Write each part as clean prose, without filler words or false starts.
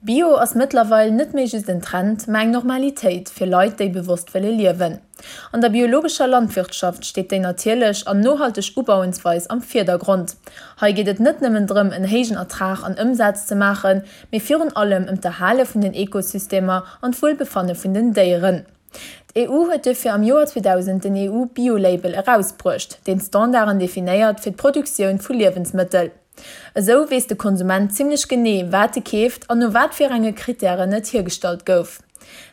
Bio ass mëttlerweil net méi just en Trend, mä eng Normalitéit fir Leit, déi bewosst wëlle liewen. An der biologescher Landwirtschaft steet déi natierlech an nohalteg Ubauensweis am Virdergrond. Hei geet et net nëmmen drëm, en héijen Ertrag an Ëmsaz ze maachen, mee virun allem ëm d'Erhale vun den Ekosystemer an d'Wuelbefanne vun den Déieren. D'EU huet duerfir am Joer 2000 den EU-Bio-Label erausbruecht, deen d'Standarden definéiert fir d'Produktioun vu Liewensmëttel. Esou weess de Konsument zimmlech genee, wat e keeft an no wat fir enge Krittären et hiergestallt gouf.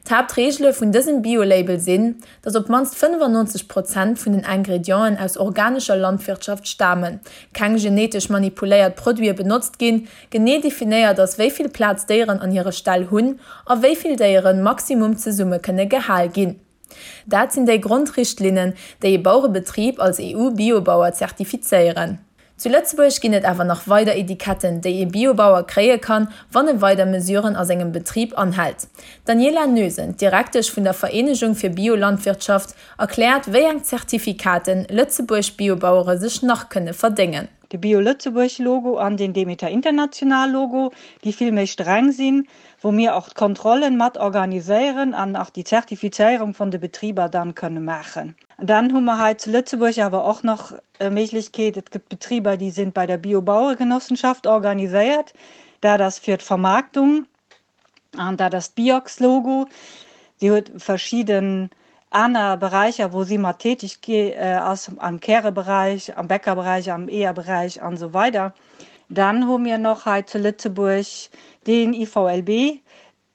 D'Haaptreegele vun dësem Bio-Label sinn, datt op d'mannst 95 Prozent vun den Ingredienten aus organescher Landwirtschaft stamen, keng genetesch manipuléiert Produite benotzt ginn, genee definéiert ass, wéi vill Plaz d'Déieren an hire Ställ hunn a wéi vill Déieren maximum zesumme kënne gehal ginn. Dat sinn déi Grondrichtlinnen, déi e Baurebetrib als EU-Biobauer zertifizéieren. Zu Lëtzebuerg ginn et awer nach weider Etiketten, déi ee Biobauer kréie kann, wann e weider Mesuren a sengem Betrib anhält. D'Daniela Noesen, Direktesch vun der Vereenegung fir Biolandwirtschaft, erkläert, wéi eng Zertifikaten Lëtzebuerg Biobauere sech nach kënne verdéngen. De Bio Lëtzebuerg Logo an den Demeter International Logo, déi vill méi streng sinn, wou mir och d'Kontrollen mat organiséieren an och déi Zertifizéierung vun de Betriber dann kënne maachen. Dann hu mer hei zu Lëtzebuerg awer och nach e Méiglechkeet, et gëtt Betriber, déi sinn bei der Bio-Baueregenossenschaft organiséiert, dat ass fir d'Vermaarktung. An dat ass d'Biox-Logo. Si huet verschidden aner Beräicher, wou si mat tätig ass, am Käreberäich, am Bäckerberäich, am Eeërberäich an esou weider. Dann hu mir nach hei zu Lëtzebuerg den IVLB,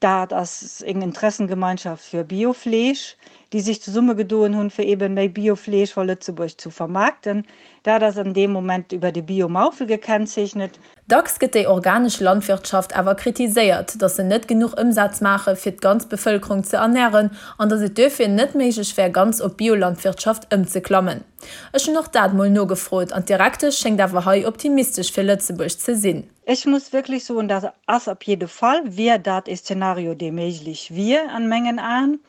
dat ass eng Interessengemeinschaft fir Biofleesch, déi sech zesummegedoen hunn, fir eeben méi Biofleesch vor Lëtzebuerg zu vermaarkten. Dat ass an deem Moment iwwer de Bio-Maufel gekennzeechnet. Dacks gëtt déi organesch Landwirtschaft awer kritiséiert, datt se net genuch Ëmsaz maache fir d'ganz Bevëlkerung ze ernären an datt et duerfir net méiglech wär ganz op Biolandwirtschaft ëmzeklammen. Ech hunn och dat mol nogefrot an d'Direktesch schéngt awer hei optimistesch fir Lëtzebuerg ze sinn. Ech muss wierklech soen, dat ass op jidde Fall, wier dat e Szenario dee méiglech wier an mengen Aen.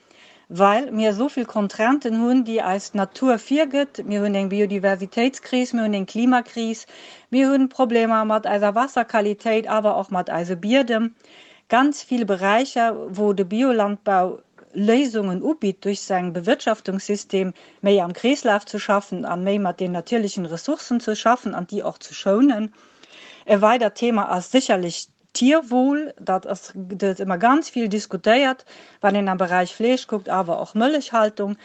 Well mir esou vill Contrainten hunn, déi eis d'Natur virgëtt. Mir hunn eng Biodiversitéitskris, mir hunn eng Klimakris, mir hunn Problemer mat eiser Wasserqualitéit, awer och mat eise Biedem. Ganz vill Beräicher, wou de Biolandbau Léisungen ubitt, duerch säin Bewirtschaftungssystem méi am Kreeslaf ze schaffen an méi mat den natierlechen Ressourcen ze schaffen an déi och ze schounen. E weidert Thema ass sécherlech Tierwohl, dat ass gëtt ëmmer ganz vill diskutéiert, wann een am Beräich Fleesch kuckt, awer och Mëllechhaltung,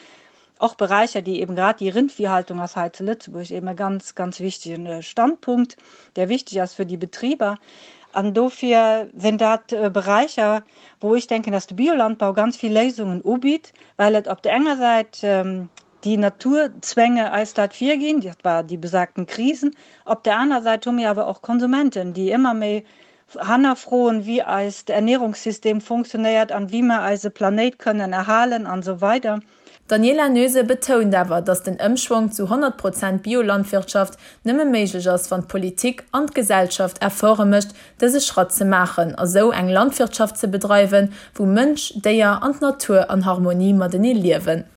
och Beräicher, déi eben grad déi Rindviehhaltung ass hei zu Lëtzebuerg eben e ganz, ganz wichtegen Standpunkt, där wichteg ass fir déi Betriber. An dofir sinn dat Beräicher, wou ech denken, dass de Biolandbau ganz vill Léisungen ubitt, well et op der enger Säit déi Naturzwänge eis dat virginn, dat war déi besagten Krisen. Op der aner Säit hu mir awer och Konsumenten, déi ëmmer méi hannerfroen, wéi eist Ernährungssystem funktionéiert an wéi mer eise Planéit kënnen erhalen an esou weider. D'Daniela Noese betount awer, datt den Ëmschwong zu 100 Prozent Biolandwirtschaft nëmme méiglech ass, wann d'Politik an d'Gesellschaft Efforte mécht, dëse Schratt ze maachen a sou eng Landwirtschaft ze bedreiwen, wou Mënsch, Déier an d'Natur an Harmonie matenee liewen.